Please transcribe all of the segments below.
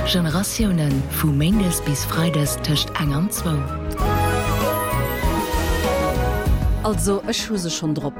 Generatiounen, vu méindes bis freides tëscht eng an zwou. Also ech hu se schonn drop.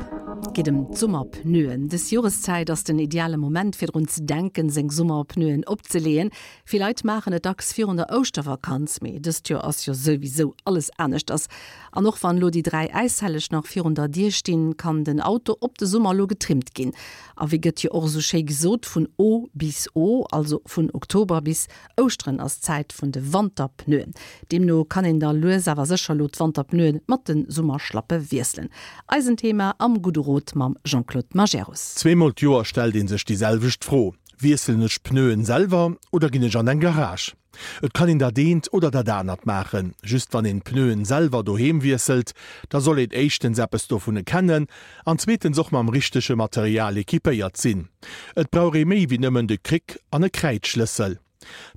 Et geet ëm d'Summerpneuen. Dës Joreszäit ass den ideale Moment fir drun ze denken, seng Summerpneuen opzeleeën. Vill Leit maachen et dacks virun der Ouschtervakanz, mee dëst Joer ass jo souwisou alles aneschters. An och wann elo déi 3 Äishelleg nach virun der Dier stinn, kann den Auto op de Summer elo getrimmt ginn. A wéi gëtt jo och esou schéi gesot, vun O bis O, also vun Oktober bis Ouschteren ass d'Zäit vun de Wanterpneuen. Deemno kann een da lues awer sécher elo d'Wanterpneuen mat de Summerschlappe wiesselen. Eisen Thema am Gudde Rot mam Jean-Claude Majerus. Zweemol d'Joer stellt ee sech déi selwecht Fro, Wiesselen ech d'Pneuen selwer oder ginn ech an eng Garage? Et kann een dat eent oder dat anert maachen. Just wann een d'Pneuen selwer doheem wiesselt, da soll een éischtens eppes dovun kennen an zweetens och mam richtege Material equipéiert sinn. Et brauch ee méi wéi nëmmen de Cric an e Kräizschlëssel.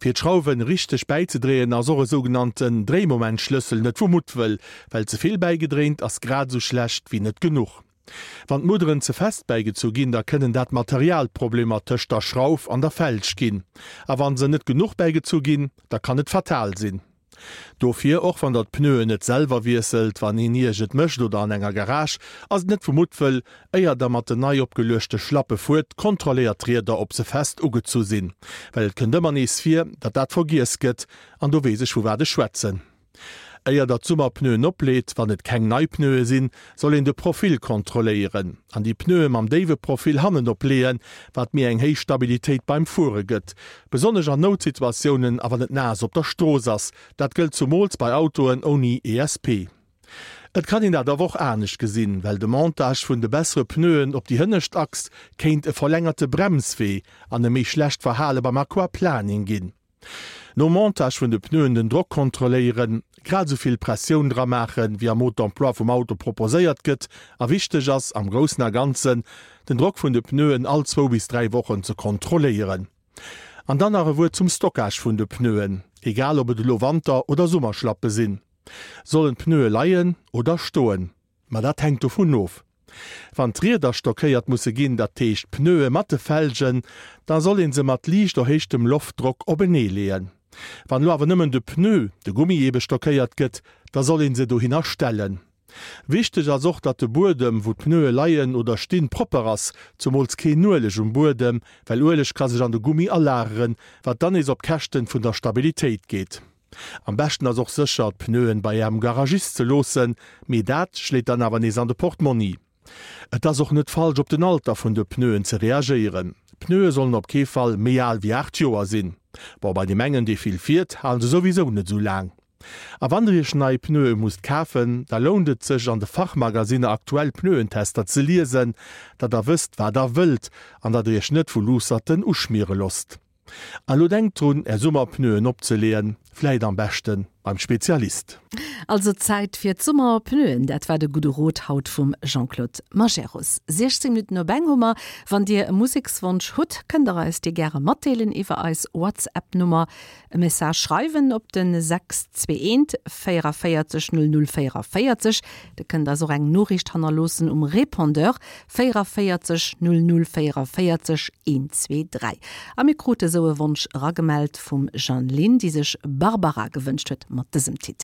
Fir d'Schrauwen richteg bäizedréien ass och e sougenannten Dréimomentschlëssel net vu Muttwëll, well ze vill bäigedréint ass grad esou schlecht wéi net genuch. Wann d'Mudderen ze fest bäigezu ginn, da kënnen dat Materialproblemer tëscht der Schrauf an der Felg ginn. A wann se net genuch bäigezu ginn, da kann et fatal sinn. Dofir, och wann der d'Pneuen net selwer wiesselt, wann een iech et mécht oder an enger Garage, ass et net vu Muttwëll, éier der mat den nei opgeluechte Schlappe fuert, kontrolléiert d'Rieder ob se fest ugezu sinn. Well et kënnt ëmmer nees vir, datt dat vergiess gëtt, an do weess ech vu wat ech schwätzen. Éier der d'Summerpneuen opleet, wann et keng nei Pneue sinn, soll een de Profil kontrolléieren an déi Pneue mam déiwe Profil hannen opleeën, wat méi eng héich Stabilitéit beim Fuere gëtt, besonnesch an Noutsituatiounen a wann et naass op der Strooss ass. Dat gëllt zumools bei Autoen ouni ESP. Et kann een dat awer och anescht gesinn, well de Montage vun de bessere Pneuen op déi hënnescht Achs kéint e verlängerte Bremswee an e méi schlecht Verhale beim Aquaplaning ginn. Nom Montage vun de Pneuen den Drock kontrolléieren, grad esou vill Pressioun dra maachen, wéi am Mode d'emploi vum Auto proposéiert gëtt. A wichteg ass am Groussen a Ganzen, den Drock vun de Pneuen all zwou bis 3 Wochen ze kontrolléieren. An dann nach e Wuert zum Stockage vun de Pneuen, egal ob et elo Wanter oder Summerschlappe sinn. Sollen d'Pneue leien oder stoen? Ma dat hänkt dovun of. Wann d'Rieder stockéiert musse ginn, dat heescht d'Pneue mat de Felgen, da soll een se mat liicht erhéichtem Loftdrock openee leeën. Wann elo awer nëmmen de Pneu, de Gummi ebe stockéiert gëtt, da soll een se dohinner stellen. Wichteg ass och, datt de Buedem, wou d'Pneue leien oder stinn, propper ass, zumools keen Ueleg um Buedem, well Ueleg ka sech an de Gummi alageren, wat dann nees op Käschten vun der Stabilitéit geet. Am beschten ass och sécher d'Pneuen bei Ärem Garagist ze loossen, mee dat schléit dann awer nees an de Portmonni. Et ass och net falsch op den Alter vun de Pneuen ze reagéieren. Pneue sollen op kee Fall méi al wéi 8 Joer sinn. Bon, bei deem engen dee vill fiert, halen se souwisou net esou laang. A wann der iech nei Pneue musst kafen, da lount et sech an de Fachmagasinner aktuell Pneuentester ze liesen, datt der wësst wat der wëllt an datt der iech net vu Luusserten uschmiere losst. A lo denkt drun är Summerpneuen opzeleeën, vläit am beschten beim Spezialist. Also Zäit fir d'Summerpneuen, dat war de gudde Rot haut vum Jean-Claude Majerus. 16 Minutten op eng hu mer. Wann dir e Musekswonsch hutt, kënnt der eis dee gäre matdeelen iwwer eis WhatsApp-Nummer. E Message schreiwen op den 621 44 00 44. Der kënnt eis och eng Noriicht hannerloossen um Répondeur 44 00 44 123. A mir krute sou e Wonsch eragemellt vum Jeanne-Lynn, déi sech Barbara gewënscht huet mat dësem Titel.